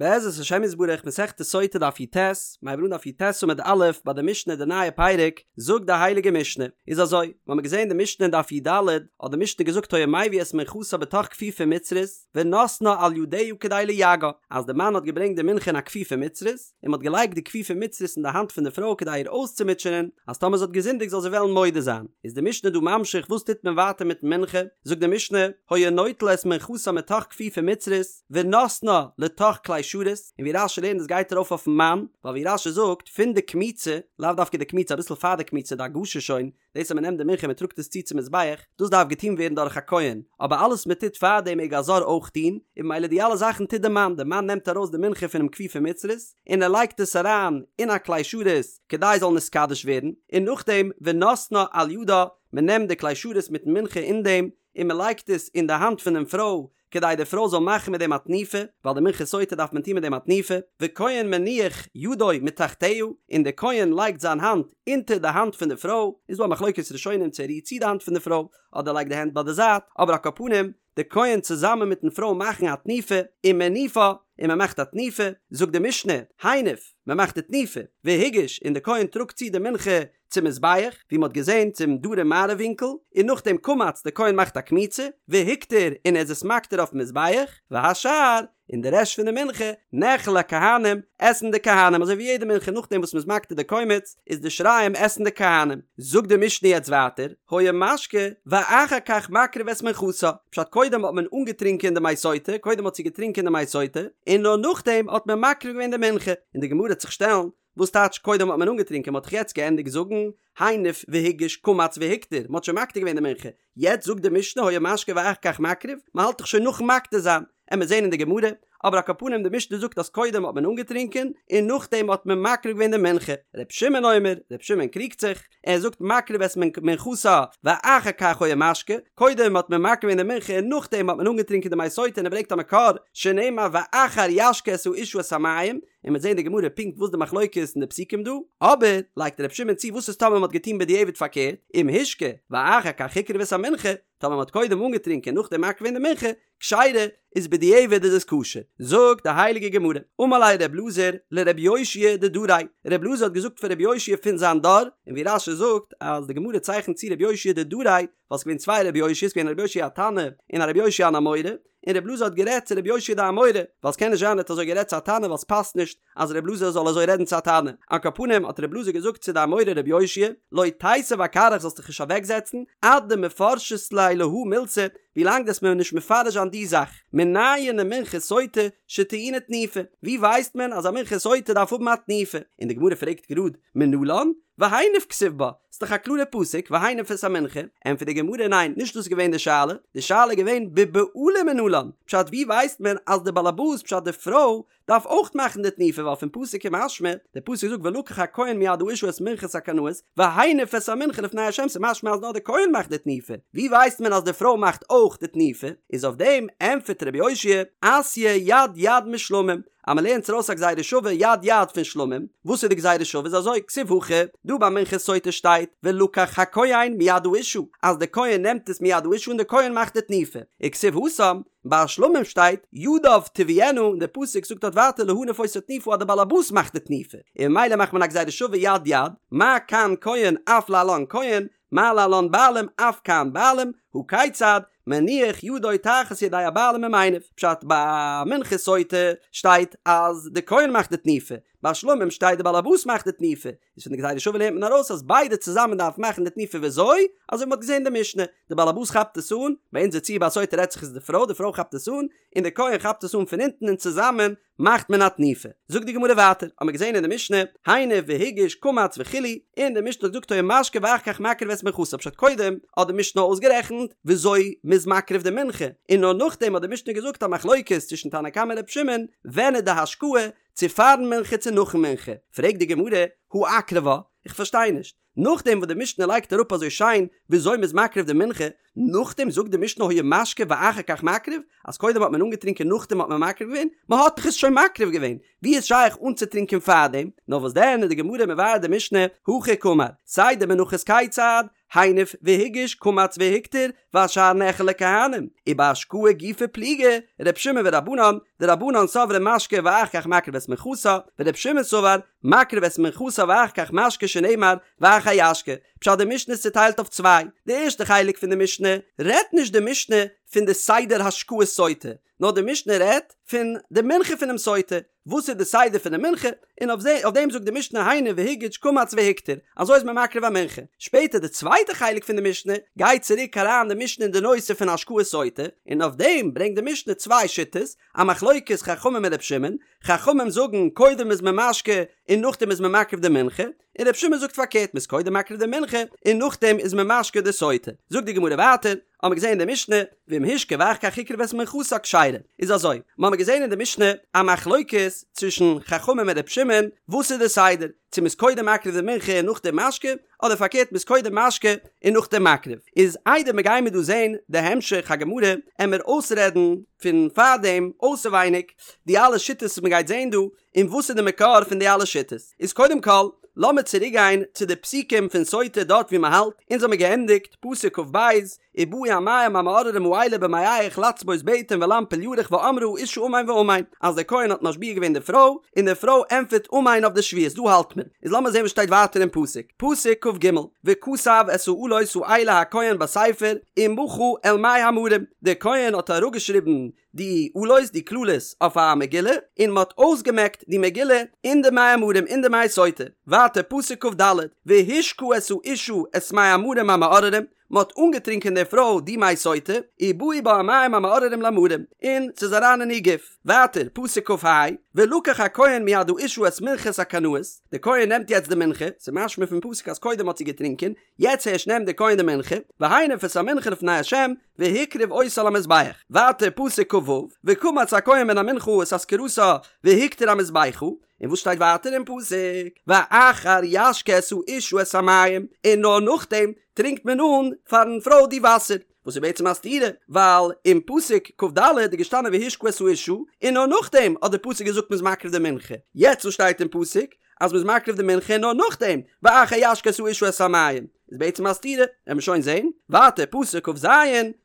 בעזרת השם יתברך מסכת סוטה דף י"ט, מ'הייבט אן דף י"ט עמוד א' ביי די משנה די נייע פרק, זאגט די הייליגע משנה, איז אזוי, מ'האמיר געזען די משנה אין דף י"ד, האט די משנה געזאגט היה מביא את מנחתה בתוך כפיפה מצרית, ונותנה על ידיה כדי ליגעה, אז די מאן האט געברענגט די מנחה אין א כפיפה מצרית, און מ'האט געלייגט די כפיפה מצרית אין די האנט פון די פרוי כדי איר אויסצומוטשענען, אז טאמער זי האט געזינדיגט זאל זי וועלן מודה זיין. איז די משנה דא ממשיך וואס טוט מען ווייטער מיטן מנחה, זאגט די משנה, היה נוטל את מנחתה מתוך כפיפה מצרית, ונותנה לתוך כלי שרת, און ווי רש"י לערנט דאס גייט ארויף אויפן מאן, ווייל ווי רש"י זאגט, פון די קמיצה, לאו דווקא די קמיצה אביסל פאר די קמיצה די הגשה שוין, דאס אז מען נעמט די מנחה און מען טראגט עס צו צום מזבח, דאס דארף געטון ווערן דורך א כהן, אבער אלעס מען טוט פאר דעם מעג א זר אויך טון, און ממילא די אלע זאכן טוט די מאן, די מאן נעמט ארויס די מנחה פונעם כפיפה מצרית, און ער לייגט עס אריין אין א כלי שרת כדי עס זאל נתקדש ווערן, און נאכדעם ונותנה על ידה, מען נעמט די כלי שרת מיטן מנחה אין דעם, און מען לייגט עס אין די האנט פונעם פרוי, כדי די פרוי זאל מאכן מיט דעם א תנופה, ווייל די מנחת סוטה דארף מען טון מיט דעם א תנופה, וכהן מניח ידו מתחתיה, און די כהן לייגט זיין האנט אונטער די האנט פון די פרוי, איז דא א מחלוקת ראשונים צו ער רירט צו די האנט פון די פרוי, אדער לייגט די הענט ביי די זייט, אבער על כל פנים, די כהן צוזאמען מיטן פרוי מאכן א תנופה, ומניפה, און מען מאכט א תנופה, זאגט די משנה, הניף, מען מאכט די תנופה, והגיש, און די כהן טראגט צו די מנחה צום מזבח, ווי מ'האט געזען צום דרום מערב ווינקל, און נאכדעם קמץ, די כהן מאכט א קמיצה, והקטיר, און ער איז עס מקטיר אויפן מזבח, והשאר, און די רעשט פון די מנחה, נאכל לכהנים, עסן די כהנים, אזוי ווי יעדע מנחה נאכדעם וואס מ'איז מקטיר די קומץ, איז די שיריים עסן די כהנים. זאגט די משנה יעצט ווייטער, היה משקה, ואחר כך מקריב את מנחתה, פשט קודם האט מען אנגעטרינקען די מי סוטה, קודם האט זי געטרינקען די מי סוטה, און נאר נאכדעם האט מען מקריב געווען די מנחה, און די גמרא וועט זיך שטעלן, וואס טייטש קודם האט מען אנגעטרינקען? מ'האט דאך יעצט געענדיגט זאגן הניף והגיש קמץ והקטיר, מ'האט שוין מקטיר געווען די מנחה, יעצט זאגט די משנה היה משקה ואחר כך מקריב, מ'האלט דאך שוין נאכן מקטיר זיין, עמיר זעהן אין די גמרא, אבער על כל פנים די משנה זאגט אז קודם האט מען אנגעטרינקען און נאכדעם האט מען מקריב געווען די מנחה, ר' שמעון אומר, ר' שמעון קריגט זיך, ער זאגט מקריב את מנחתה ואחר כך היה משקה, קודם האט מען מקריב געווען די מנחה און נאכדעם האט מען אנגעטרינקען די מי סוטה און ער ברענגט א מקור שנאמר ואחר ישקה את האשה את המים, און מ'וועט זען די גמרא פונקט וואס די מחלוקת אין די פסוקים דא, אבער לייגט ר' שמעון צו וואס איז טאמער מ'האט געטון בדיעבד פארקערט, אם השקה ואחר כך הקריב את המנחה, טאמער מ'האט קודם אנגעטרינקען נאכדעם מקריב געווען די מנחה, כשרה, איז בדיעבד איז עס כשר. זאגט די הייליגע גמרא, אמר ליה ר' אלעזר לר' יאשיה דדריה, ר' אלעזר האט געזאגט פאר ר' יאשיה פון זיין דור, און ווי רש"י זאגט אז די גמרא צייכנט צו ר' יאשיה דדריה, ווייל ס'איז געווען צוויי ר' יאשיה'ס, ס'געווען א ר' יאשיה התנא און א ר' יאשיה אן אמורא, און ר' אלעזר האט גערעדט צו ר' יאשיה די אמורא, ווייל ס'קען נישט זיין ער האט אזוי גערעדט צו א תנא ווייל ס'פאסט נישט אז ר' אלעזר זאל אזוי רעדן צו א תנא. על כל פנים האט ר' אלעזר געזאגט צו די אמורא ר' יאשיה, לא תיתיב אכרעך זאלסט דיך נישט אוועקזעצן, עד דמפרשת לי להא מילתא, ווילאנג דו'סט מיר נישט מפרש זיין די זאך, מנין למנחת סוטה שטעונה תנופה, ווי ווייסט מען אז א מנחת סוטה דארף האבן א תנופה? און די גמרא פרעגט גראד, מנלן? והניף כתיב בה, ס'דאך א קלארע פסוק והניף את המנחה, ענטפערט די גמרא ניין נישט דאס איז געווען די שאלה, די שאלה איז געווען בבעלים מנלן, פשט ווי ווייסט מען אז די באלעבאס פשט די פרוי דארף אויך מאכן די תנופה ווייל פון פסוק איז משמע, די פסוק זאגט ולקח הכהן מיד האשה את מנחת הקנאות והניף את המנחה לפני ה' ס'איז משמע אז נאר די כהן מאכט די תנופה, ווי ווייסט מען אז די פרוי מאכט אויך די תנופה, איז אויף דעם ענטפערט רבי יאשיה, אתיא יד יד משלמים, אז מען לערנט ארויס א גזירה שווה יד יד פון שלמים, וואס איז די גזירה שווה איז אזוי, כתיב הכא, דא ביי מנחת סוטה שטייט ולקח הכהן מיד האשה, אז די כהן נעמט עס מיד האשה און די כהן מאכט די תנופה, וכתיב התם, ביי שלמים שטייט ידיו תביאינה און די פסוק זאגט דארט ווייטער להניף אותה תנופה אז די באלעבאס מאכט די תנופה, און ממילא מאכט מען א גזירה שווה יד יד, מה כאן כהן אף להלן כהן, מה להלן בעלים אף כאן בעלים, הא כיצד, מניח ידו תחת ידי הבעלים ומניף, פשט ביי מנחת סוטה שטייט אז די כהן מאכט די תנופה, ביי שלמים שטייט די באלעבאס מאכט די תנופה, איז פון די גזירה שווה לערנט מען ארויס אז ביידע צוזאמען דארפן מאכן די תנופה וויאזוי? אזוי ווי מ'האט געזען אין די משנה, די באלעבאס כאפט עס אן, ביי אונזער ציור ביי סוטה רעדט זיך איז די פרוי, די פרוי כאפט עס אן, און די כהן כאפט עס אן פון אונטן און צוזאמען מאכט מען א תנופה. זאגט די גמרא ווייטער, האמיר געזען אין די משנה, הניף והגיש קמץ וכו', און די משנה האט געזאגט היה משקה ואחר כך מקריב את מנחתה, פשט קודם האט די משנה אויסגערעכנט וויאזוי מ'איז מקריב די מנחה, און נאר נאכדעם האט די משנה געזאגט א מחלוקת צווישן תנא קמא און ר' שמעון, ווען איז די השקאה, צו פארן מנחה צו נאכן מנחה, פרעגט די גמרא, הא אקרבה, איך פארשטיי נישט, נאכדעם וואס די משנה לייגט אראפ אזוי שיין וויאזוי מ'איז מקריב די מנחה, נאכדעם זאגט די משנה היה משקה ואחר כך מקריב, אז קודם האט מען אנגעטרינקען נאכדעם האט מען מקריב געווען, מ'האט דאך עס שוין מקריב געווען, ווי איז שייך אנצוטרינקען פארדעם? נאר וואס דען איז די גמרא מבאר די משנה, הכי קאמר, סדר מנחות כיצד, הניף והגיש קמץ והקטיר והשאר נאכל לכהנים, ובהשקאה גופא פליגי ר' שמעון ורבנן, דרבנן סברי משקה ואחר כך מקריב את מנחתה, ור' שמעון סבר מקריב את מנחתה ואחר כך משקה שנאמר ואחר ישקה. פשט די משנה איז צוטיילט אויף צוויי, די ערשטע חלק פון די משנה רעדט נישט די משנה פון די סדר השקאת סוטה, נאר די משנה רעדט פון די מנחה פונעם סוטה, וואס איז די סדר פון די מנחה, און אויף דעם זאגט די משנה הניף והגיש קמץ והקטיר, אזוי איז מען מקריב א מנחה. שפעטער די צווייטע חלק פון די משנה, גייט צוריק אריין די משנה אין די נושא פון השקאת סוטה, און אויף דעם ברענגט די משנה צוויי שיטות, א מחלוקת חכמים און ר' שמעון, חכמים זאגן קודם איז מען משקה און נאכדעם איז מען מקריב די מנחה, און ר' שמעון זאגט פארקערט מ'איז קודם מקריב די מנחה און נאכדעם איז מען משקה די סוטה. זאגט די גמרא ווייטער, האמער געזען אין די משנה, ואם השקה ואחר כך הקריב את מנחתה כשרה, איז אזוי, מ'האמער געזען אין די משנה א מחלוקת צווישן חכמים און ר' שמעון, וואס איז די סדר, צו מ'איז קודם מקריב די מנחה און נאכדעם משקה, אדער פארקערט מ'איז קודם משקה און נאכדעם מקריב. איז איידער מ'גיימיר דא זען די המשך הגמרא, עמער אויסרעדן פון פארדעם אויסעווייניג די אלע שיטות וואס מ'גייט זען דא, און וואס איז די מקור פון די אלע שיטות? איז קודם כל, לאמיר צוריק גיין צו די פסוקים פון סוטה דארט ווי מען האלט, אונז האמיר געענדיגט פסוק כ"ב, ובאו המים המאררים האלה במעיך לצבות בטן ולנפיל ירך ואמרה האשה אמן ואמן, אז דער כהן האט משביע געווען די פרוי, און די פרוי ענטפערט אמן אויף די שבועות, דא האלט מען. איז לאמיר זען וואס שטייט ווייטער אין פסוק, פסוק כ"ג, וכתב את האלות האלה הכהן בספר ומחה אל מי המרים, דער כהן האט אראפגעשריבן די אלות, די קללות, אויף א מגילה, און מען האט אויסגעמעקט די מגילה אין די מי המרים, אין די מי סוטה. ווייטער פסוק כ"ד, והשקה את האשה את מי המרים המאררים, מען האט אנגעטרינקען די פרוי די מי סוטה, ובאו בה המים המאררים למרים, און ס'איז אריין אין איר גוף. ווייטער פסוק כ"ה, ולקח הכהן מיד האשה את מנחת הקנאות, די כהן נעמט יעצט די מנחה, ס'איז משמע פון פסוק אז קודם האט זי געטרינקען, יעצט הערשט נעמט די כהן די מנחה, והניף את המנחה לפני ה', והקריב אותה על המזבח. ווייטער פסוק כ"ו, וקמץ הכהן מן המנחה את אזכרתה והקטיר המזבחה, און וואס שטייט ווייטער אין פסוק, ואחר ישקה את האשה את המים, און נאר נאכדעם טרינקט מען אן פארן פרוי די וואסער, וואס איז בעצם א סתירה, ווייל אין פסוק כ"ד איז געשטאנען והשקה את האשה, און נאר נאכדעם האט דער פסוק געזאגט מ'איז מקריב די מנחה, יעצט וואס שטייט אין פסוק אז מ'איז מקריב די מנחה נאר נאכדעם, ואחר ישקה את האשה את המים, איז בעצם א סתירה, וועט מען שוין זעהן, ווייטער פסוק כ"ז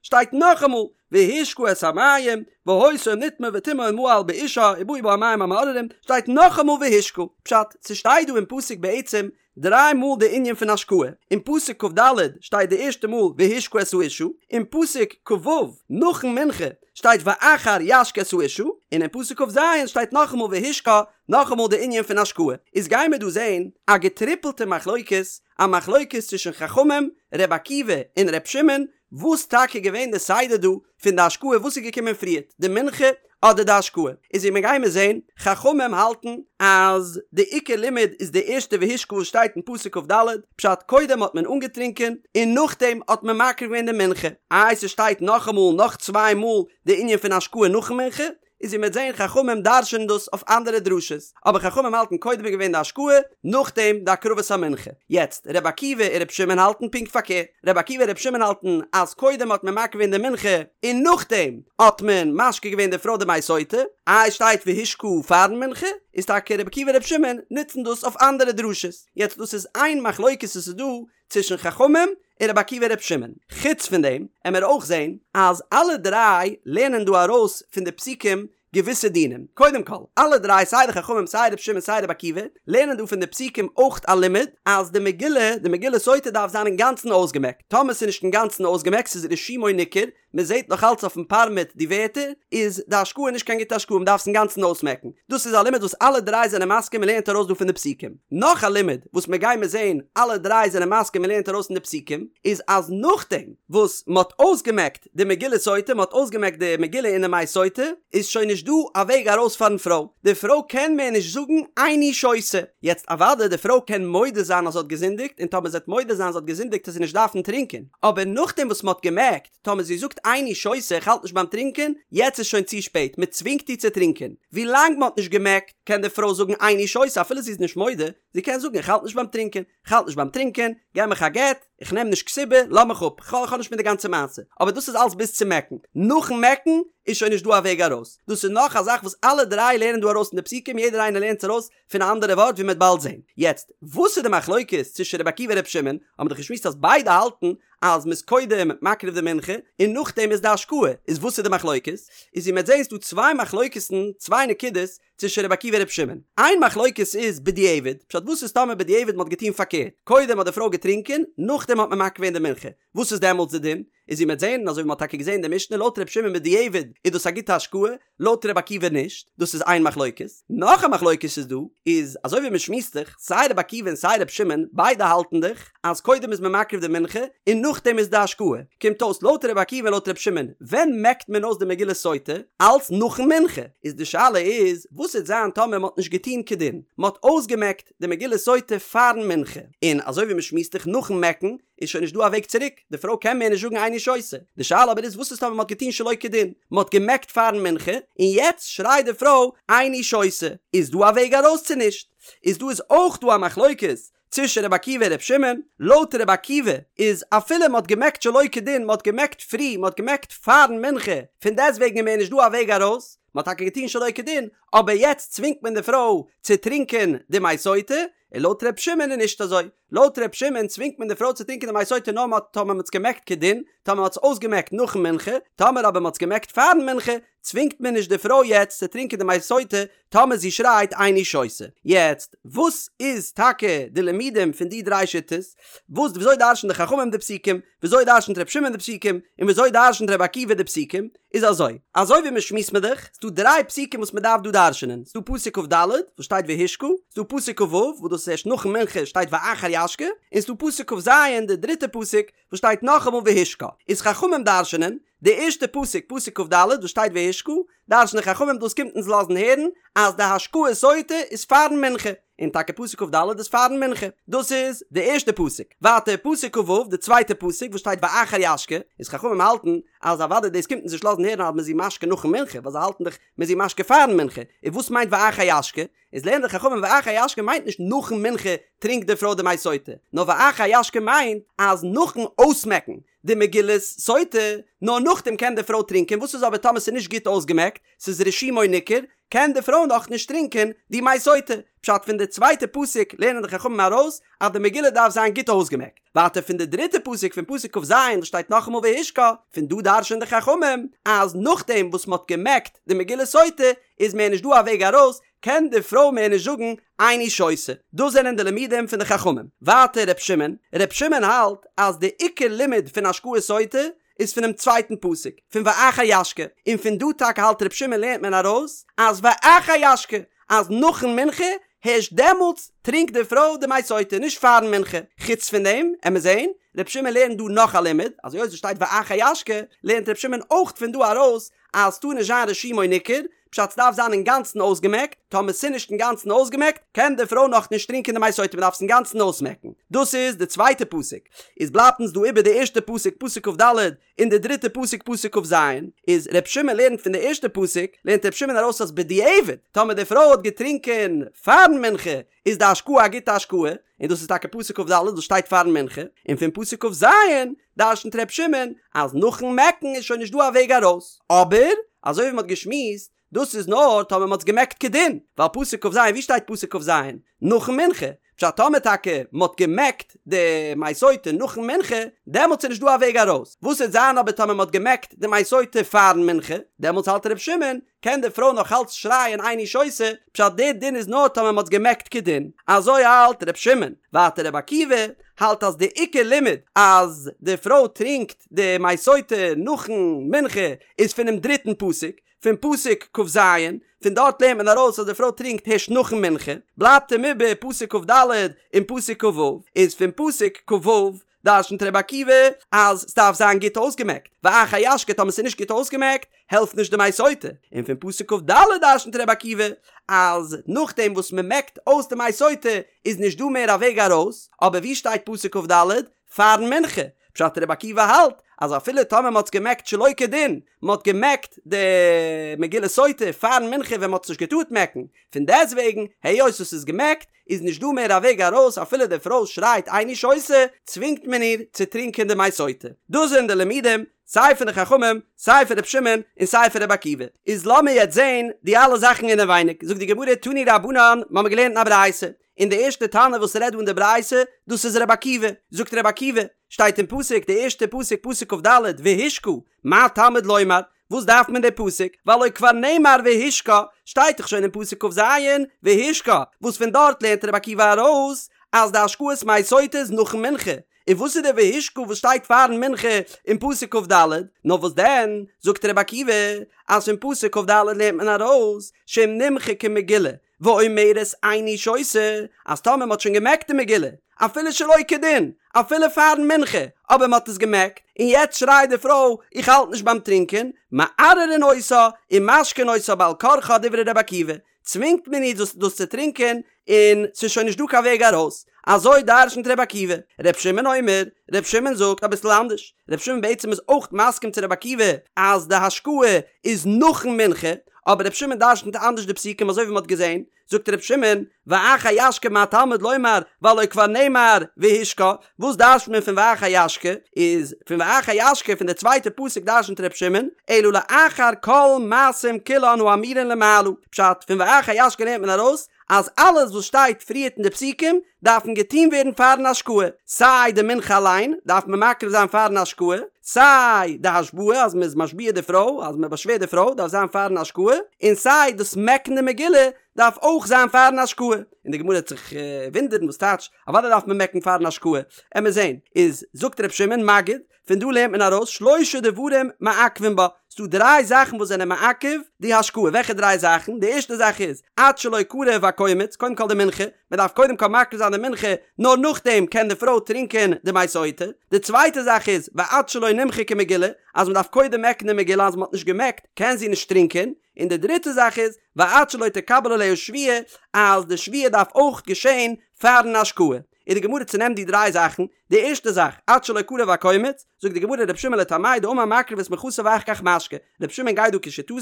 שטייט נאכאמאל והשקה את המים, והיתה אם נטמאה וטמאה או מעל באישה ובאו בה המים המאררים, שטייט נאכאמאל והשקה, פשט, ס'שטייט דא אין פסוק בעצם דריי מאל די ענין פון השקאה, אין פסוק כ"ד שטייט די ערשטע מאל והשקה את האשה, אין פסוק כ"ו נאכן מנחה שטייט ואחר ישקה את האשה, און אין פסוק כ"ז שטייט נאכאמאל והשקה, נאכאמאל די ענין פון השקאה, איז גיימער דא זעהן א געטריפלטע מחלוקת, א מחלוקת צווישן חכמים, ר' עקיבא און ר' שמעון, וואס טאקע געווען די סדר דא פון די השקאה וואס איז געקומען פריערט די מנחה אדער די השקאה, איז ווי מיר גיימער זעהן, חכמים האלטן אז די עיקר לימוד איז די ערשטע והשקה וואס שטייט אין פסוק כ"ד, פשט קודם האט מען אנגעטרינקען און נאכדעם האט מען מקריב געווען די מנחה, איי ס'שטייט נאכאמאל נאך צוויי מאל די ענין פון השקאה נאכן מנחה, איז ווי מ'וועט זעהן חכמים דרש'ענען דאס אויף אנדערע דרשות, אבער חכמים האלטן קודם איז געווען די השקאה, נאכדעם די הקרבת המנחה. יעצט, ר' עקיבא און ר' שמעון האלטן פונקט פארקערט, ר' עקיבא און ר' שמעון האלטן אז קודם האט מען מקריב געווען די מנחה און נאכדעם האט מען משקה געווען די פרוי די מי סוטה, איי שטייט והשקה פארן מנחה, איז טאקע ר' עקיבא און ר' שמעון נוצן דאס אויף אנדערע דרשות. יעצט דאס איז איין מחלוקת וואס איז דא צווישן חכמים און רבי עקיבא און רבי שמעון. חוץ פון דעם עמער אויך זעהן אז אלע דריי לערנען דא ארויס פון די פסוקים געוויסע דינים. קודם כל, אלע דריי סיי די חכמים סיי רבי שמעון סיי רבי עקיבא לערנען דא פון די פסוקים אויך א לימוד אז די מגילה, די מגילת סוטה דארף זיין אינגאנצן אויסגעמעקט. טאמער ס'איז נישט אינגאנצן אויסגעמעקט, ס'איז רישומו ניכר, מען זעט נאך אלץ אויפן פארמעט די ווערטער, איז די השקאה נישט קיין גוטע השקאה, מען דארף עס אינגאנצן אויסמעקן. דאס איז א לימוד וואס אלע דריי זענען מסכים מען לערנט ארויס דא פון די פסוקים. נאך א לימוד וואס מען גיימער זען אלע דריי זענען מסכים מען לערנט ארויס פון די פסוקים, איז אז נאכדעם וואס מען האט אויסגעמעקט די מגילת סוטה, מען האט אויסגעמעקט די מגילה אין די מי סוטה, איז שוין נישט דא א וועג ארויס פארן פרוי. די פרוי קען מער נישט זאגן איני שותה. יעצט אוודאי די פרוי קען מודה זיין אז זי האט געזינדיגט, און טאמער זי וועט מודה זיין זי האט געזינדיגט וועט זי נישט דארפן טרינקען, אבער נאכדעם וואס מען האט געמעקט, טאמער זי זאגט איני שותה איך האלט נישט ביים טרינקען, יעצט איז שוין צו שפעט, מען צווינגט איר צו טרינקען. ווי לאנג מען האט נישט געמעקט, קען די פרוי זאגן איני שותה אפילו זי איז נישט מודה, זי קען זאגן איך האלט נישט ביים טרינקען, איך האלט נישט ביים טרינקען, געב מיך א גט, איך נעם נישט כתובה, לאז מיך אפ, כ'האב נישט מיט די גאנצע מעשה. אבער דאס איז אלס ביז צום מעקן. נאכן מעקן איז שוין נישט דא א וועג ארויס. דאס איז נאך א זאך וואס אלע דריי לערנען דא ארויס אין די פסוקים, יעדער איינער לערנט עס ארויס פון א אנדערע ווארט ווי מ'וועט באלד זען. יעצט, וואס איז די מחלוקת צווישן רבי עקיבא און רבי שמעון? האבן מיר דאך געשמועסט אז ביידע האלטן אז מ'איז קודם מקריב די מנחה און נאכדעם איז די השקאה, איז וואס איז די מחלוקת? איז ווי מ'וועט זען איז דא צוויי מחלוקת'ן, צוויי נקודות, צווישן רבי עקיבא און רבי שמעון. איין מחלוקת איז בדיעבד, פשט וואס איז טאמער בדיעבד מ'האט געטון פארקערט, קודם האט די פרוי געטרינקען, נאכדעם האט מען מקריב געווען די מנחה, וואס איז דעמאלטס די דין? איז ווי מ'וועט זען, און אזוי ווי מ'האט טאקע געזען אין די משנה, לויט רבי שמעון בדיעבד איז דאס א גוטע השקאה, לויט רבי עקיבא נישט, דאס איז איין מחלוקת. נאך א מחלוקת איז דא, איז אזוי ווי מ'שמועסט זיך, סיי רבי עקיבא און סיי רבי שמעון, ביידע האלטן דאך, אז קודם איז מען מקריב די מנחה, און נאכדעם איז די השקאה. קומט אויס לויט רבי עקיבא און לויט רבי שמעון, ווען מעקט מען אויס די מגילת סוטה? אלץ נאכן מנחה. איז די שאלה איז, וואס וועט זיין טאמער מ'האט נישט געטון כדין, מ'האט אויסגעמעקט די מגילת סוטה פארן מנחה, און אזוי ווי מ'שמועסט זיך נאכן מעקן, איז שוין נישט דא א וועג צוריק, די פרוי קען מער נישט זאגן איני שותה. די שאלה אבער איז וואס איז טאמער מ'האט געטון שלא כדין, מ'האט געמעקט פארן מנחה, און יעצט שרייט די פרוי איני שותה, איז דא א וועג ארויס צו נישט? איז דא איז אויך דא א מחלוקת צווישן רבי עקיבא און רבי שמעון, לויט רבי עקיבא איז אפילו מ'האט געמעקט שלא כדין, מ'האט געמעקט פרי, מ'האט געמעקט פארן מנחה, פון דעסטוועגן איז מער נישט דא א וועג ארויס, מ'האט טאקע געטון שלא כדין, אבער יעצט צווינגט מען די פרוי צו טרינקען די מי סוטה, און לויט ר' שמעון איז נישט אזוי, לויט ר' שמעון צווינגט מען די פרוי צו טרינקען די מי סוטה נאר מ'האט טאמער מ'האט עס געמעקט כדין, טאמער מ'האט עס אויסגעמעקט נאכן מנחה, טאמער אבער מ'האט עס געמעקט פארן מנחה, צווינגט מען נישט די פרוי יעצט צו טרינקען די מי סוטה טאמער זי שרייט איני שותה. יעצט, וואס איז טאקע די לימודים פון די דריי שיטות? וואס וויאזוי דרש'ן די חכמים די פסוקים? וויאזוי דרש'נט ר' שמעון די פסוקים? און וויאזוי דרש'נט ר' עקיבא די פסוקים? איז אזוי, אזוי ווי מ'שמועסט מען דאך, ס'דא דריי פסוקים וואס מ'דארף דא דרש'נען, ס'דא פסוק כ"ד וואס שטייט והשקה, ס'דא פסוק כ"ו וואס דאס איז ערשט נאכן מנחה שטייט ואחר ישקה, און ס'דא פסוק כ"ז די דריטע פסוק וואס שטייט נאכאמאל והשקה. איז חכמים דרש'נען, די ערשטע פסוק, פסוק כ"ד וואס שטייט והשקה, דרש'נען חכמים דאס קומט אונז לאזן הערן אז די השקאת סוטה איז פארן מנחה, און טאקע פסוק כ"ד איז פארן מנחה, דאס איז די ערשטע פסוק, ווייטער פסוק כ"ו די צווייטע פסוק וואס שטייט ואחר ישקה, איז חכמים האלטן אז אוודאי דאס קומט אונז נישט לאזן הערן אז מ'איז איר משקה נאכן מנחה, ווייל זיי האלטן דאך מ'איז איר משקה פארן מנחה, און וואס מיינט ואחר ישקה? איז לערנען די חכמים ואחר ישקה מיינט נישט נאכן מנחה טרינקט די פרוי די מי סוטה, נאר ואחר ישקה מיינט אז נאכן אויסמעקן די מגילת סוטה, נאר נאכדעם קען די פרוי טרינקען, וואס איז אבער טאמער ס'איז נישט גוט אויסגעמעקט, ס'איז רישומו ניכר, קען די פרוי נאך נישט טרינקען די מי סוטה. פשט פון די צווייטע פסוק לערנען די חכמים ארויס אז די מגילה דארף זיין גוט אויסגעמעקט. ווייטער פון די דריטע פסוק פון פסוק כ"ז וואס שטייט נאכאמאל והשקה, פון דא דרש'ענען די חכמים אז נאכדעם וואס מ'האט געמעקט די מגילת סוטה איז מער נישט דא א וועג ארויס, קען די פרוי מער נישט זאגן איני שותה. דאס זענען די לימודים פון די חכמים. ווייטער ר' שמעון, ר' שמעון האלט אז די עיקר לימוד פון השקאת סוטה איז פונעם צווייטן פסוק, פון ואחר ישקה, און פון דא טאקע האלט ר' שמעון לערנט מען ארויס אז ואחר ישקה, אז נאכן מנחה, הערשט דעמאלטס טרינקט די פרוי די מי סוטה, נישט פארן מנחה. חוץ פון דעם, עמער זעהן, ר' שמעון לערנט דא נאך א לימוד, אז היות עס שטייט ואחר ישקה, לערנט ר' שמעון אויך פון דא ארויס אז ס'טאר נישט זיין רישומו ניכר, פשט ס'דארף זיין אינגאנצן אויסגעמעקט, טאמער ס'נישט אינגאנצן אויסגעמעקט, קען די פרוי נאך נישט טרינקען די מי סוטה מ'דארף עס אינגאנצן אויסמעקן. דאס איז די צווייטע פסוק. איז בלייבט אונז דא איבער די ערשטע פסוק פסוק כ"ד און די דריטע פסוק פסוק כ"ז, איז ר' שמעון לערנט פון די ערשטע פסוק לערנט ר' שמעון ארויס אז בדיעבד טאמער די פרוי האט געטרינקען פארן מנחה איז די השקאה א גוטע השקאה, און דאס איז טאקע פסוק כ"ד וואס שטייט פארן מנחה, און פון פסוק כ"ז דרשנ'ט ר' שמעון אז נאכן מעקן איז שוין נישט דא א וועג ארויס, אבער אזוי ווי מ'האט געשמועסט דאס איז נאר טאמער מ'האט עס געמעקט כדין, ווייל פסוק כ"ז ווי שטייט פסוק כ"ז? נאכן מנחה, פשט טאמער טאקע מ'האט געמעקט די מי סוטה נאכן מנחה, דעמאלטס איז נישט דא א וועג ארויס, וואס וועט זיין אבער טאמער מ'האט געמעקט די מי סוטה פארן מנחה, דעמאלטס האלט ר' שמעון קען די פרוי נאך אלץ שרייען איני שותה, פשט דער דין איז נאר טאמער מ'האט עס געמעקט כדין, אזוי האלט ר' שמעון, ווייטער ר' עקיבא האלט אז די עיקר לימוד אז די פרוי טרינקט די מי סוטה נאכן מנחה איז פונעם דריטן פסוק, פון פסוק כ"ז, פון דארט לערנט מען ארויס אז די פרוי טרינקט הערשט נאכן מנחה, בלייבט אים איבער פסוק כ"ד און פסוק כ"ו, איז פון פסוק כ"ו דרשנ'ט ר' עקיבא אז ס'דארף זיין גוט אויסגעמעקט, ואחר ישקה טאמער ס'איז נישט גוט אויסגעמעקט העלפט נישט די מי סוטה, און פון פסוק כ"ד דרשנ'ט ר' עקיבא אז נאכדעם וואס מ'מעקט אויס די מי סוטה איז נישט דא מער א וועג ארויס, אבער ווי שטייט פסוק כ"ד? פארן מנחה, פשט ר' עקיבא האלט אז אפילו טאמער מ'האט עס געמעקט שלא כדין, מ'האט געמעקט די מגילת סוטה פארן מנחה ווען מ'האט עס נישט געטארט מעקן, פון דעסטוועגן היות עס איז געמעקט איז נישט דא מער א וועג ארויס אפילו די פרוי שרייט איני שותה צווינגט מען איר צו טרינקען די מי סוטה. דאס זענען די לימודים סיי פון די חכמים סיי פון ר' שמעון און סיי פון ר' עקיבא. איז לאמיר יעצט זעהן די אלע זאכן אינעווייניג, זאגט די גמרא תנו רבנן, מ'האמיר געלערנט אין א ברייתא, און די ערשטע תנא וואס רעדט דא אין די ברייתא, דאס איז ר' עקיבא, זאגט ר' עקיבא, שטייט אין פסוק די ערשטע פסוק פסוק כ"ד והשקה, מה תלמוד לומר, וואס דארף מען די פסוק, והלא כבר נאמר והשקה, שטייט דאך שוין אין פסוק כ"ז והשקה, וואס פון דארט לערנט ר' עקיבא ארויס אז די השקאת מי סוטה איז נאכן מנחה, און וואס איז די והשקה וואס שטייט פארן מנחה אין פסוק כ"ד? נאר וואס דען, זאגט ר' עקיבא, אז פון פסוק כ"ד לערנט מען ארויס, שאם נמחקה מגילה, ואומרת איני שותה, אז טאמער מען האט שוין געמעקט די מגילה, אפילו שלא כדין, אפילו פארן מנחה, אבער מען האט עס געמעקט, און יעצט שרייט די פרוי איך האלט נישט ביים טרינקען, מערערין אותה ומשקין אותה בעל כרחה דברי ר' עקיבא, צווינגט מען איר דאס דאס צו טרינקען, און ס'איז שוין נישט דא קיין וועג ארויס. אזוי דרשנ'ט ר' עקיבא. ר' שמעון אומר, ר' שמעון זאגט אביסל אנדערש. ר' שמעון בעצם איז אויך מסכים צו ר' עקיבא אז די השקאה איז נאכן מנחה, אבער ר' שמעון דרשנ'ט אנדערש די פסוקים אזוי ווי מ'האט געזען, זאגט ר' שמעון, ואחר ישקה מה תלמוד לומר והלא כבר נאמר והשקה, וואס דרש'נט מען פון ואחר ישקה? איז פון ואחר ישקה פון די צווייטע פסוק דרשנ'ט ר' שמעון, אלא לאחר כל מעשים כולן האמורין למעלה, פשט, פון ואחר ישקה לערנט מען ארויס אז אלעס וואס שטייט פריערט אין די פסוקים דארפן געטון ווערן פארן השקאה, סיי די מנחה אליין דארף מען מקריב זיין פארן השקאה, סיי די השבעה אז מען איז משביע די פרוי, אז מען באשווערט די פרוי דארף זיין פארן השקאה, און סיי דאס מעקן די מגילה דארף אויך זיין פארן השקאה. און די גמרא וועט זיך וואונדערן וואס טייטש אוודאי דארף מען מעקן פארן השקאה, עמיר זען, איז זאגט ר' שמעון מגיד, פון דא לערנט מען ארויס שלשה דברים מעכבין בה, ס'דא דריי זאכן וואס זענען מעכב די השקאה, וועלכע דריי זאכן? די ערשטע זאך איז, עד שלא קרב הקומץ, קודם כל די מנחה, מען דארף קודם כל מקריב זיין די מנחה, נאר נאכדעם קען די פרוי טרינקען די מי סוטה, די צווייטע זאך איז, ועד שלא נמחקה מגילה, אז מען דארף קודם מעקן די מגילה, אז מען האט נישט געמעקט קען זי נישט טרינקען, און די דריטע זאך איז, ועד שלא תקבל עליה שבועה, אז די שבועה דארף אויך געשען פארן השקאה. און די גמרא צונעמט די דריי זאכן, די ערשטע זאך, עד שלא קרב הקומץ, זאגט די גמרא ר' שמעון לטעמיה דאמר מקריב את מנחתה ואחר כך משקה, ר' שמעון גייט דא כשיטתו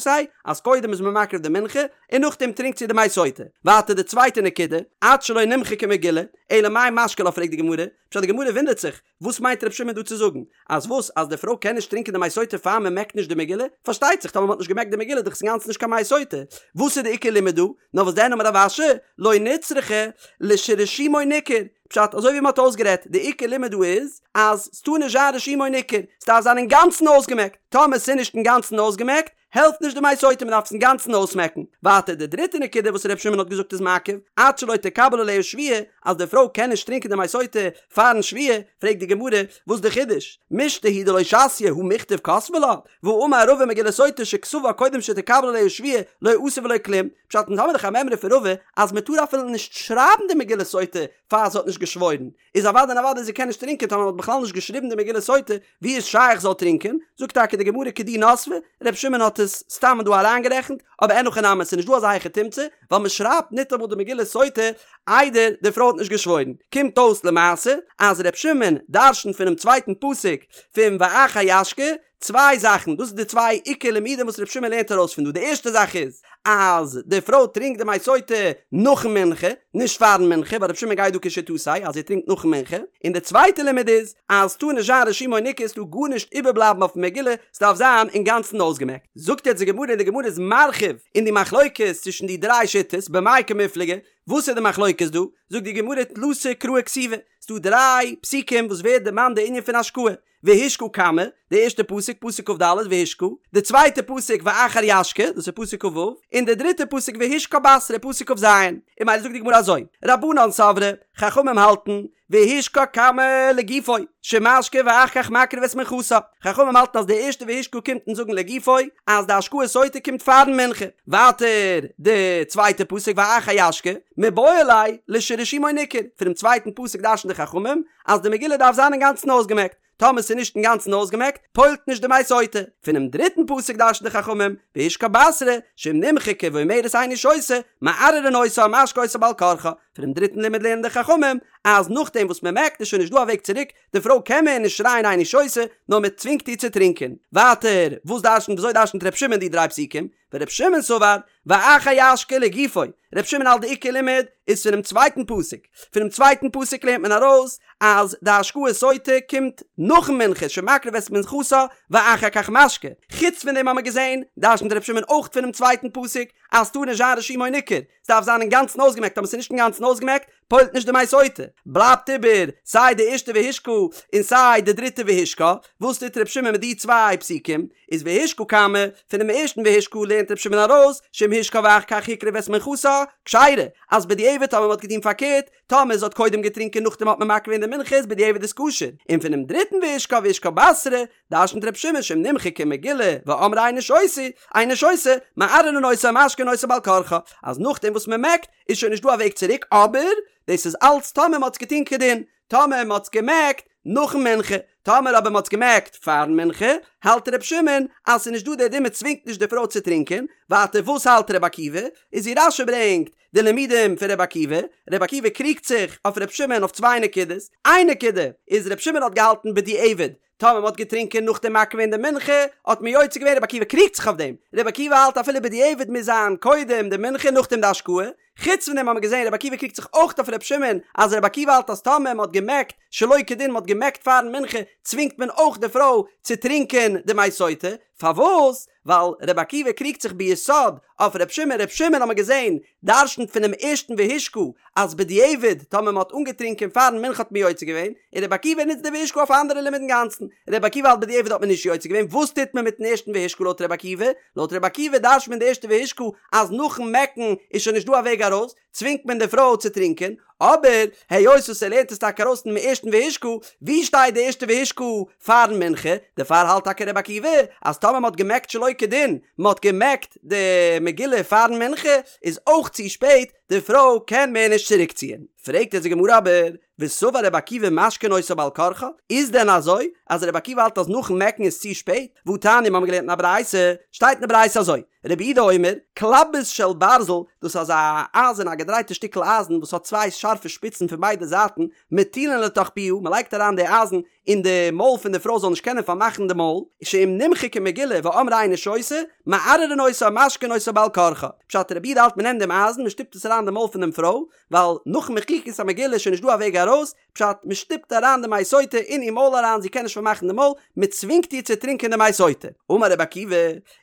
אז קודם איז מען מקריב די מנחה און נאכדעם טרינקט זי די מי סוטה. ווייטער די צווייטע נקודה, עד שלא נמחקה מגילה, אלא מאי משקה לה פרעגט די גמרא, פשט די גמרא וואונדערט זיך, וואס מיינט ר' שמעון דא צו זאגן? אז וואס? אז די פרוי קען נישט טרינקען די מי סוטה פאר מען מעקט נישט די מגילה? פארשטייט זיך טאמער מען האט נישט געמעקט די מגילה איז דאך עס אינגאנצן נישט קיין מי סוטה. וואס איז די עיקר לימוד דא? נאר וואס דען אמר רב אשי, לא נצרכה לשרישומו ניכר. פשט, אזוי ווי מען האט אויסגערעדט, די עיקר לימוד דא איז אז ס'טאר נישט זיין רישומו ניכר, ס'דארף זיין אינגאנצן אויסגעמעקט. טאמער ס'איז נישט אינגאנצן אויסגעמעקט, העלפט נישט די מי סוטה מען דארף עס אינגאנצן אויסמעקן. ווייטער די דריטע נקודה וואס ר' שמעון האט געזאגט איז מעכב, עד שלא תקבל עליה שבועה, אז די פרוי קען נישט טרינקען די מי סוטה פארן שבועה, פרעגט די גמרא, וואס די חידוש? מישתא הוא דלא שתיא הא מיכתב כתבי לה, והאמר רבא מגילת סוטה שכתבה קודם שתקבל עליה שבועה לא עשה ולא כלום, פשט אונז האמיר דאך א מימרא פון רבא אז מען טאר אפילו נישט שרייבן די מגילת סוטה פאר זי האט נישט געשוואוירן, איז אוודאי און אוודאי זי קען נישט טרינקען טאמער מען האט בכלל נישט געשריבן די מגילת סוטה, ווי איז שייך זאל טרינקען? זאגט טאקע די גמרא כדי נסבה, ר' שמעון האט עס סתם דא אריינגערעכנט, אבער אין הכי נמי ס'איז נישט דא אזא היכי תמצא, ווייל מען שרייבט ניטאמאל די מגילת סוטה איידער די פרוי האט נישט געשוואוירן. קומט אויס למעשה אז ר' שמעון דרש'נט פונעם צווייטן פסוק פון ואחר ישקה צוויי זאכן, דאס איז די צוויי עיקר לימודים וואס ר' שמעון לערנט ארויס פון דא, די ערשטע זאך איז אז די פרוי טרינקט די מי סוטה נאכן מנחה, נישט פארן מנחה, ווייל ר' שמעון גייט דא כשיטתו אז זי טרינקט נאכן מנחה, און די צווייטע לימוד איז אז ס'טאר נישט זיין רישומו ניכר, ס'טאר גארנישט איבערבלייבן אויפן מגילה, ס'דארף זיין אינגאנצן אויסגעמעקט. זאגט יעצט די גמרא און די גמרא איז מרחיב אין די מחלוקת צווישן די דריי שיטות, במאי קמיפלגי, וואס איז די מחלוקת דא? זאגט די גמרא תלתא קראי כתיבי, ס'דא דריי פסוקים וואס ווערט דערמאנט די ענין פון השקאה, והשקה קמא, די ערשטע פסוק, פסוק כ"ד, והשקה, די צווייטע פסוק ואחר ישקה, דאס איז פסוק כ"ו, און די דריטע פסוק והשקה בתרא, פסוק כ"ז. און ממילא זאגט די גמרא אזוי, רבנן סברי, חכמים האלטן, והשקה קמא לגופו, שמשקה ואחר כך מקריב את מנחתה. חכמים האלטן אז די ערשטע והשקה קומט אונז זאגן לגופו, אז די השקאת סוטה קומט פארן מנחה. ווייטער די צווייטע פסוק ואחר ישקה, מיבעי ליה לשרישומו ניכר, פונעם צווייטן פסוק דרש'ן די חכמים אז די מגילה דארף זיין אינגאנצן אויסגעמעקט. טאמער ס'איז נישט אינגאנצן אויסגעמעקט, פועל'ט נישט די מי סוטה. פונעם דריטן פסוק דרש'ן די חכמים, והשקה בתרא, שאם נמחקה ואומרת איני שותה, מערערין אותה ומשקה אותה בעל כרחה. פונעם דריטן לימוד לערנען די חכמים, אז נאכדעם וואס מ'מעקט איז שוין נישט דא א וועג צוריק, די פרוי קען מער נישט שרייען איני שותה, נאר מ'צווינגט איר צו טרינקען. ווייטער, וואס דרש'נט וויאזוי דרש'נט ר' שמעון די דריי פסוקים? ור' שמעון סבר, ואחר ישקה לגופו, ר' שמעון האלט די עיקר לימוד איז פונעם צווייטן פסוק, פונעם צווייטן פסוק לערנט מען ארויס אז די השקאת סוטה קומט נאכן מנחה שמקריב את מנחתה ואחר כך משקה, חוץ פון דעם האמער געזען דרש'נט ר' שמעון אויך פונעם צווייטן פסוק אז ס'טאר נישט זיין רישומו ניכר, ס'דארף זיין אינגאנצן אויסגעמעקט אבער ס'איז נישט אינגאנצן אויסגעמעקט פועל'ט נישט די מי סוטה, בלייבט איבער סיי די ערשטע והשקה און סיי די דריטע והשקה, וואס טוט ר' שמעון מיט די צוויי פסוקים? איז והשקה כמה, פונעם ערשטן והשקה לערנט ר' שמעון ארויס, שאם השקה ואחר כך הקריב את מנחתה, כשרה, אז בדיעבד טאמער מ'האט געטון פארקערט, טאמער זי האט קודם געטרינקען נאכדעם האט מען מקריב געווען די מנחה איז בדיעבד איז כשר, און פונעם דריטן והשקה והשקה בתרא, דרשנ'ט ר' שמעון שאם נמחקה מגילה ואמרה איני שותה, איני שותה, מערערין אותה ומשקין אותה בעל כרחה, אז נאכדעם וואס מ'מעקט איז שוין נישט דא א וועג צוריק, אבער דאס איז אלץ טאמער מ'האט עס געטון כדין, טאמער מ'האט עס געמעקט נאכן מנחה, טאמער אבער מ'האט עס געמעקט פארן מנחה, האלט ר' שמעון אז ס'איז נישט דא דער דין מ'צווינגט נישט די פרוי צו טרינקען, ווייטער וואס האלט ר' עקיבא? איז ווי רש"י ברענגט די לימודים פון ר' עקיבא, ר' עקיבא קריגט זיך אויף ר' שמעון אויף צוויי נקודות, איין נקודה איז ר' שמעון האט געהאלטן בדיעבד טאמער מ'האט געטרינקען נאך דעם מקריב געווען די מנחה, האט מען יוצא געווען, רבי עקיבא קריגט זיך אויף דעם, רבי עקיבא האלט אפילו בדיעבד מוז זיין קודם די מנחה נאכדעם די השקאה, חוץ פון דעם האט מען געזען רבי עקיבא קריגט זיך אויך אויף רבי שמעון, אז רבי עקיבא האלט אז טאמער מ'האט געמעקט שלא כדין מ'האט געמעקט פארן מנחה צווינגט מען אויך די פרוי צו טרינקען די מי סוטה, פארוואס? ווייל רבי עקיבא קריגט זיך ביסוד אויף רבי שמעון, רבי שמעון האט מען געזען דרשנ'ט פונעם ערשטן והשקה אז בדיעבד טאמער מען האט אנגעטרינקען פארן מנחה האט מען יוצא געווען, און רבי עקיבא נוצט די והשקה אויף א אנדערע לימוד אינגאנצן, רבי עקיבא האלט בדיעבד האט מען נישט יוצא געווען, וואס טוט מען מיטן ערשטן והשקה לויט רבי עקיבא? לויט רבי עקיבא דרשנ'ט מען די ערשטע והשקה אז נאכן מעקן איז שוין נישט דא א וועג ארויס, צווינגט מען די פרוי צו טרינקען, אבער היות וואס ער לערנט עס טאקע ארויס פונעם ערשטן והשקה, ווי שטייט די ערשטע והשקה פארן מנחה? דערפאר האלט טאקע רבי עקיבא אז טאמער מען האט געמעקט שלא כדין, מען האט געמעקט די מגילה פארן מנחה, איז אויך צו שפעט, די פרוי קען מער נישט צוריקציען. פרעגט אונז די גמרא אבער, וסבר רבי עקיבא משקין אותה בעל כרחה, איז דען אזוי אז רבי עקיבא האלט אז נאכן מעקן איז צו שפעט? והתניא מיר האבן געלערנט אין א ברייתא, שטייט אין די ברייתא אזוי, רבי יהודה אומר, כלבוס של ברזל, דאס איז אזא אייזן א געדרייטע שטיקל אייזן וואס האט צוויי שארפע שפיצן פון ביידע זייטן, מטילין לתוך פיה, מען לייגט אריין די אייזן אין די מויל פון די פרוי זאל נישט קענען פארמאכן די מויל, שאם נמחקה מגילה ואמרה איני שותה, מערערין אותה ומשקין אותה בעל כרחה. פשט רבי יהודה האלט מען נעמט דעם אייזן מען שטופט עס אריין אין די מויל פון דעם פרוי, ווייל נאכן מחיקת המגילה איז שוין נישט דא א וועג ארויס, פשט, מען שטופט אריין די מי סוטה אין איר מויל אריין זי קען נישט פארמאכן די מויל, מען צווינגט איר צו טרינקען די מי סוטה. אמר רבי עקיבא,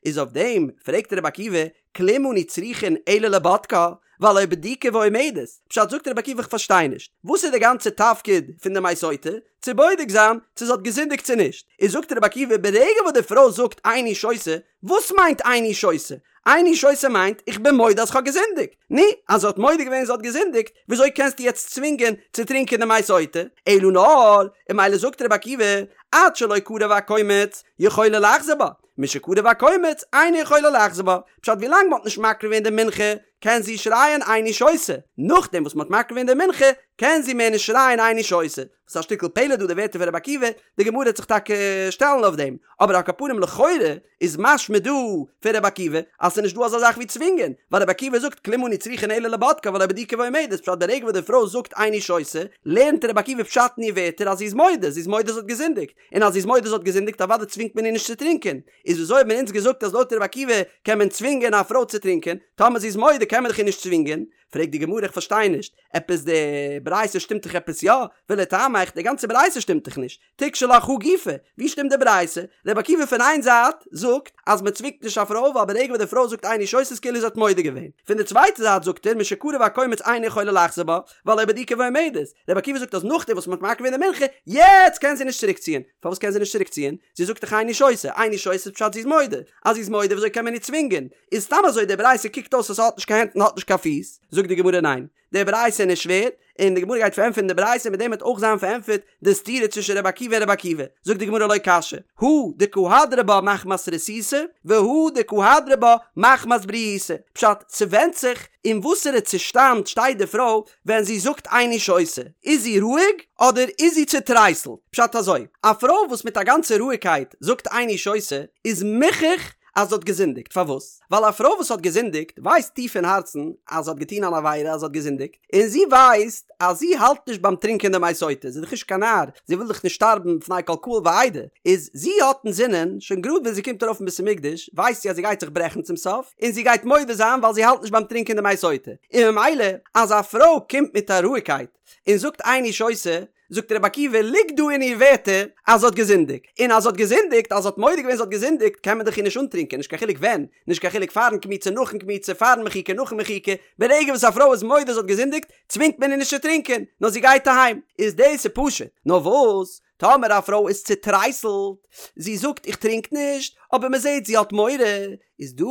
איז אויף דעם פרעגט רבי עקיבא, כלום אנו צריכין אלא לבודקה, והלא בדוקה ועומדת, פשט זאגט רבי עקיבא איך פארשטיי נישט, וואס איז די גאנצע תפקיד פון די מי סוטה? צו בודק זיין צו זי האט געזינדיגט צו נישט, איז זאגט רבי עקיבא ברגע וואס די פרוי זאגט איני שותה, וואס מיינט איני שותה? איני שותה מיינט איך בין מודה אז כ'האב געזינדיגט. נו, אז זי האט מודה געווען זי האט געזינדיגט, וויאזוי קענסטו יעצט צווינגען צו טרינקען די מי סוטה? אלא נאר, און ממילא זאגט רבי עקיבא, עד שלא קרב הקומץ, יכולה לחזור בה, משקרב הקומץ, אינה יכולה לחזור בה. פשט ווילאנג מ'האט נישט מקריב געווען די מנחה, קען זי שרייען איני שותה. נאכדעם וואס מ'האט מקריב געווען די מנחה, קען זי מער נישט שרייען איני שותה. ס'איז א שטיקל פלא דא די ווערטער פון רבי עקיבא, די גמרא וועט זיך טאקע שטעלן אויף דעם, אבער על כל פנים לכאורה איז משמע דא פון רבי עקיבא אז ס'איז נישט דא אזא זאך ווי צווינגען, ווייל רבי עקיבא זאגט כלום אנו צריכין אלא לבודקה והלא בדוקה ועומדת, פשט די רגע וואס די פרוי זאגט איני שותה, לערנט רבי עקיבא פשט אין איר ווערטער אז זי איז מודה, זי איז מודה זי האט געזינדיגט, און אז זי איז מודה זי האט געזינדיגט אוודאי צווינגט מען איר נישט צו טרינקען, איז וויאזוי האט מען אונז געזאגט אז לויט רבי עקיבא קען מען צווינגען א פרוי צו טרינקען, טאמער זי איז מודה קען מען דאך איר נישט צווינגען, פרעגט די גמרא איך פארשטיי נישט, עפעס די ברייתא שטימט דאך עפעס יא, ולטעמיך די גאנצע ברייתא שטימט דאך נישט, תיקשי לך הא גופא, ווי שטימט די ברייתא? רבי עקיבא פון איין זייט זאגט אז מען צווינגט נישט א פרוי ווייל ברגע וואס די פרוי זאגט איני שותה איז כאילו זי האט מודה געווען, פון די צווייטע זייט זאגט ער משקרב הקומץ אינה יכולה לחזור בה, והלא בדוקה ועומדת, רבי עקיבא זאגט אז נאכדעם וואס מען האט מקריב געווען די מנחה, יעצט קען זי נישט צוריק ציען, פארוואס קען זי נישט צוריק ציען? זי זאגט דאך איני שותה, איני שותה איז פשט זי איז מודה, אז זי איז מודה וויאזוי קען מען איר צווינגען? איז סתם אזוי די ברייתא קוקט אויס אז ס'האט נישט קיין הענט און האט נישט קיין פיס, זאגט די גמרא ניין, די ברייתא איז נישט שווער, און די גמרא גייט פארענטפערן די ברייתא מיט דעם וועט אויך זיין פארענטפערט די סתירה צווישן רבי עקיבא און רבי עקיבא, זאגט די גמרא לא קשיא, הא דקא הדרה בה מחמת רתיתא, והא דקא הדרה בה מחמת בריהותא, פשט, ס'ווענדט זיך אין וואסערע צושטאנד שטייט די פרוי ווען זי זאגט איני שותה, איז זי רואיג אדער איז זי צוטרייסלט? פשט אזוי, א פרוי וואס מיט א גאנצע רואיגקייט זאגט איני שותה איז מוכח אז זי האט געזינדיגט, פארוואס? ווייל א פרוי וואס האט געזינדיגט ווייסט טיף אין הארצן אז זי האט געטון אן עבירה אז זי האט געזינדיגט, און זי ווייסט אז זי האלט נישט ביים טרינקען די מי סוטה, זי איז דאך נישט קיין נאר, זי וויל דאך נישט שטארבן בפני כל קהל ועדה, איז זי האט אינזינען, שוין גראד ווען זי קומט ארויף אין בית המקדש, ווייסט זי אז זי גייט זיך ברעכן צום סוף, און זי גייט מודה זיין ווייל זי האלט נישט ביים טרינקען די מי סוטה, און ממילא אז א פרוי קומט מיט א רואיגקייט און זאגט איני שותה, זאגט רבי עקיבא, ליגט דא אין איר ווערטער אז זי האט געזינדיגט, און אז זי האט געזינדיגט, אז זי האט מודה געווען זי האט געזינדיגט, קען מען דאך איר נישט אנטרינקען, נישט קיין חילוק ווען, נישט קיין חילוק פארן קמיצה נאכן קמיצה, פארן מחיקה נאכן מחיקה, ברגע וואס א פרוי איז מודה זי האט געזינדיגט, צווינגט מען איר נישט צו טרינקען, נאר זי גייט אהיים, איז דאס איז פשוט, נאר וואס, טאמער א פרוי איז צוטרייסלט, זי זאגט איך טרינק נישט, אבער מען זעט זי האט מורא, איז דא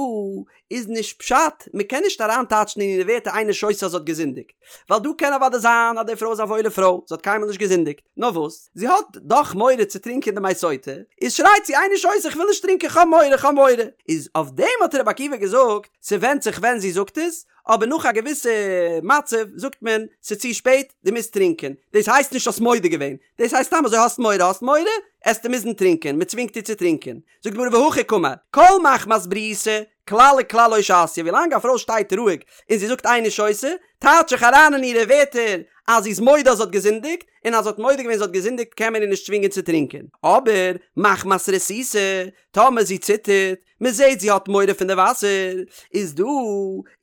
איז נישט פשט, מען קען נישט אריינטייטשן אין אירע ווערטער איני שותה אז זי האט געזינדיגט, ווייל דא קען אוודאי זיין אז די פרוי איז א וואוילע פרוי, זי האט קיינמאל נישט געזינדיגט, נאר וואס, זי האט דאך מורא צו טרינקען די מי סוטה, איז שרייט זי איני שותה איך וויל נישט טרינקען כ'האב מורא כ'האב מורא, איז אויף דעם האט רבי עקיבא געזאגט, ס'ווענדט זיך ווען זי זאגט עס, אבער נאך א געוויסע מצב זאגט מען ס'איז צו שפעט, דו מוזט טרינקען, דאס הייסט נישט האסט מודה געווען, דאס הייסט סתם אזוי האסט מורא האסט מורא, עסטו מוזן טרינקען, מ'צווינגט דיר צו טרינקען. זאגט די גמרא והכי קאמר, כל מחמת בריהותא, כלל וכלל לא שתיא, ווילאנג א פרוי שטייט רואיג און זי זאגט איני שותה, טייטש איך אריין אין אירע ווערטער אז זי איז מודה אז זי האט געזינדיגט, און אז זי האט מודה געווען זי האט געזינדיגט קען מען איר נישט צווינגען צו טרינקען. אבער, מחמת רתיתא, טאמער זי ציטערט, מען זעט זי האט מורא פון די וואסער, איז דא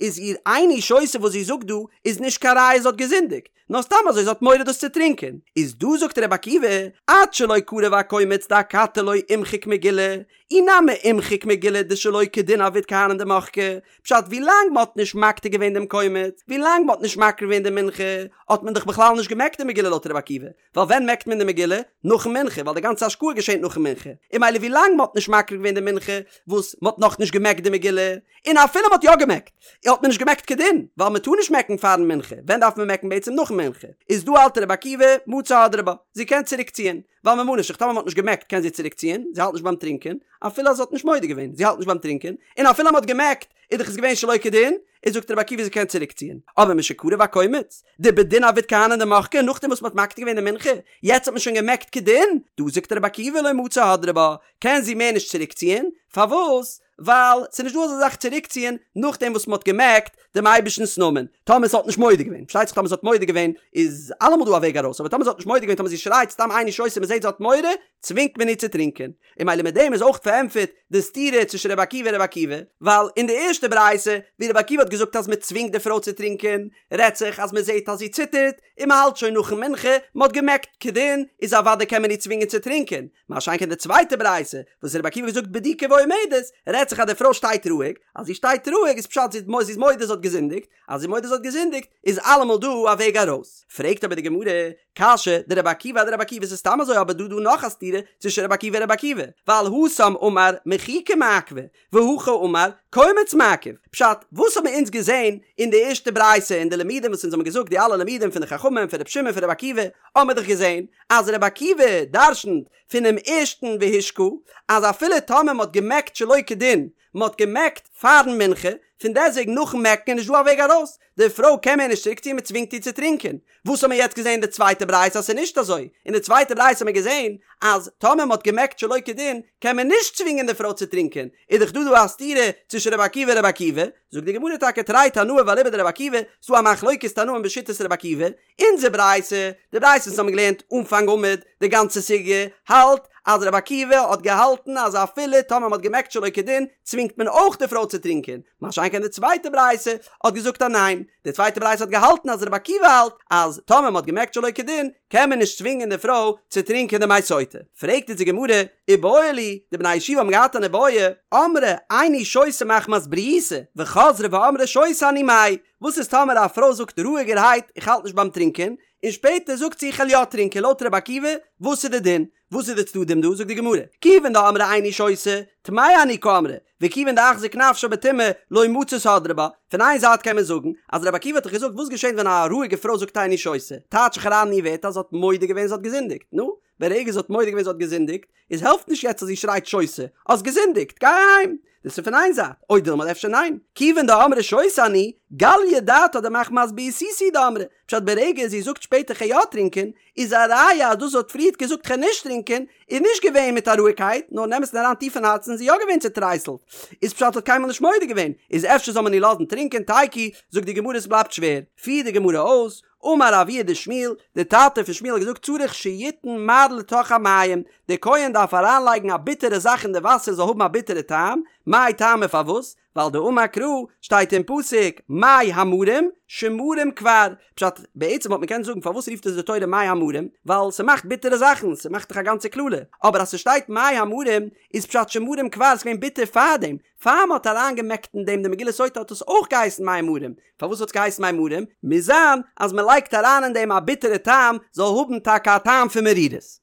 איז איר איני שותה וואס זי זאגט דא איז נישט קיין ראיה זי האט געזינדיגט, נאר סתם אזוי זי האט מורא דאס צו טרינקען, איז דא זאגט רבי עקיבא, עד שלא קרב הקומץ דאכתי לא אימחיק מגילה, אי נמי אימחיק מגילה דשלא כדין עביד כהנים דמחקי, פשט ווילאנג מען האט נישט מקטיר געווען דעם קומץ, ווילאנג מען האט נישט מקריב געווען די מנחה, האט מען דאך בכלל נישט געמעקט די מגילה לויט רבי עקיבא, ווייל ווען מעקט מען די מגילה? נאכן מנחה, ווייל די גאנצע השקאה געשענט נאכן מנחה, און ממילא ווי לאנג מ'האט נישט מקריב געווען די מנחה, וואס מ'האט נאכנישט געמעקט די מגילה, און אפילו מ'האט יא געמעקט, האט מען נישט געמעקט כדין, ווייל מ'טאר נישט מעקן פארן מנחה, ווען דארף מען מעקן בעצם נאכן מנחה, איז דא האלט רבי עקיבא, מצי הדרה בה, זי קען צוריק ציען, ווייל ממה נפשך טאמער מ'האט נישט געמעקט קען זי צוריק ציען, זי האלט נישט ביים טרינקען, אפילו אז זי האט נישט מודה געווען, זי האלט נישט ביים טרינקען, און אפילו מ'האט געמעקט, איז דאך עס געווען שלא כדין, איז זאגט רבי עקיבא זי קען צוריק ציען, אבער משקרב הקומץ, דבדין עביד כהנים דמחקי נאכדעם וואס מ'האט מקטיר געווען די מנחה, יעצט האט מען שוין געמעקט כדין, דא זאגט רבי עקיבא לא מצי הדרה בה, קען זי מער נישט צוריק ציען, פארוואס? ווייל ס'איז נישט דא אזא זאך צוריק ציען נאכדעם וואס מ'האט געמעקט דעם אייבערשטנ'ס נאמען, טאמער זי האט נישט מודה געווען, פארשטייט זיך טאמער זי האט מודה געווען איז אלעמאל דא א וועג ארויס, אבער טאמער זי האט נישט מודה געווען טאמער זי שרייט סתם איני שותה מ'זעט זי האט מורא, צווינגט מען איר צו טרינקען. און ממילא מיט דעם איז אויך פארענטפערט די סתירה צווישן רבי עקיבא און רבי עקיבא, ווייל אין די ערשטע ברייתא ווי רבי עקיבא האט געזאגט אז מען צווינגט די פרוי צו טרינקען, רעדט זיך אז מען זעט אז זי ציטערט, און מען האלט שוין נאכן מנחה, מען האט געמעקט כדין, איז אוודאי קען מען איר צווינגען צו טרינקען, מה שאין כן די צווייטע ברייתא וואס רבי עקיבא האט געזאגט בדוקה ועומדת, רעדט זיך אז די פרוי שטייט רואיג, אז זי שטייט רואיג איז פשט זי איז מודה זי האט געזינדיגט, אז זי איז מודה זי האט געזינדיגט, איז אלעמאל דא א וועג ארויס. פרעגט אבער די גמרא, קשיא דרבי עקיבא אדרבי עקיבא ס'איז סתם אזוי אבער דא דא נאך א סתירה צווישן רבי עקיבא און רבי עקיבא, ווייל התם אמר מחיקה מעכבא, והכא אמר קומץ מעכב, פשט, וואס האבן אונז געזען אין די ערשטע ברייתא אין די לימודים וואס אונז האבן געזאגט די אלע לימודים פון די חכמים פון רבי שמעון פון רבי עקיבא, האבן מיר דאך געזען אז רבי עקיבא דרשנ'ט פונעם ערשטן והשקה אז אפילו טאמער מ'האט געמעקט שלא כדין מען האט געמעקט פארן מנחה, פון דעסוועגן נאכן מעקן איז נישט דא א וועג ארויס, די פרוי קען מער נישט צוריק ציען מען צווינגט איר צו טרינקען, וואס האט מען יעצט געזען אין די צווייטע ברייתא אז ס'איז נישט אזוי, אין די צווייטע ברייתא האט מען געזען אז טאמער מען האט געמעקט שלא כדין קען מען נישט צווינגען די פרוי צו טרינקען, איז דאך דא דא א סתירה צווישן רבי עקיבא און רבי עקיבא, זאגט די גמרא טאקע תרי תנאי ואליבא דרבי עקיבא, ס'דא א מחלוקת תנאים בשיטת רבי עקיבא, אונזער ברייתא, די ברייתא וואס האבן געלערנט אנפאנג עמוד, די גאנצע סוגיא, האלט אז רבי עקיבא האט געהאלטן אז אפילו טאמער מ'האט געמעקט שלא כדין, צווינגט מען אויך די פרוי צו טרינקען, מה שאין כן די צווייטע ברייתא האט געזאגט אז ניין, די צווייטע ברייתא האט געהאלטן אז רבי עקיבא האלט אז טאמער מ'האט געמעקט שלא כדין, קען מען נישט צווינגען די פרוי צו טרינקען די מי סוטה. פרעגט אונז די גמרא. איבעיא להו, די בני ישיבה האבן געהאט אן איבעיא, אמרה איני שותה מחמת בריותא, וחזרה ואמרה שותה אני מאי, וואס איז טאמער א פרוי זאגט רואיגערהייט איך האלט נישט ביים טרינקען, און שפעטער זאגט זי איך וועל יא טרינקען לויט רבי עקיבא, וואס איז די דין? וואס איז די צדדים דא? זאגט די גמרא, כיוון דאמרה איני שותה, טמאה אני קאמרה, וכיוון דאחזיק נפשה בטומאה, לא מצית הדרה בה. פון איין זייט קען מען זאגן, אז רבי עקיבא האט דאך געזאגט וואס געשענט ווען א רואיגע פרוי זאגט איני שותה, טייטש איך אריין אין איר ווערטער אז זי האט מודה געווען זי האט געזינדיגט, נו, ברגע זי האט מודה געווען זי האט געזינדיגט, איז העלפט נישט יעצט אז זי שרייט שותה, האסט געזינדיגט, גיי אהיים! דאס איז פון איין זייט, או דילמא אדער אפשר ניין, כיוון דאמרה שותה אני, גליא דעתה דמחמת בריותא הוא דאמרה, פשט ברגע זי זאגט שפעטער כ'גיי יא טרינקען, איז א ראיה אז דאס זי האט פריערט געזאגט כ'גיי נישט טרינקען, איז נישט געווען מיט א רואיגקייט, נאר אין אמת'ן אריין טיף אין הארצן איז זי יא געווען צוטרייסלט, איז פשט האט קיינמאל נישט מודה געווען, איז אפשר זאל מען איר לאזן טרינקען תיקו, זאגט די גמרא עס בלייבט שווער, פירט די גמרא אויס, אמר אבוה דשמואל, דער טאטע פון שמואל האט געזאגט צריך שיתן מר לתוך המים, דער כהן דארף אריינלייגן א ביטערע זאך אין די וואסער זאל האבן א ביטערע טעם, מאי טעמא פארוואס? ווייל דאמר קרא, שטייט אין פסוק, מי המרים, שמרים כבר, פשט, בעצם וואלט מען קענען זאגן פארוואס רופט עס די תורה מי המרים, ווייל ס'מאכט ביטערע זאכן, ס'מאכט דאך א גאנצע קללה, אבער אז ס'שטייט מי המרים, איז פשט שמרים כבר, ס'געווען ביטער פארדעם, פאר מ'האט אריינגעמעקט אין דעם די מגילת סוטה האט עס אויך געהייסן מי מרים, פארוואס האט עס געהייסן מי מרים? מוז זיין אז מ'לייגט אריין אין דעם א ביטערע טעם, זאל האבן טאקע א טעם פון מרירות.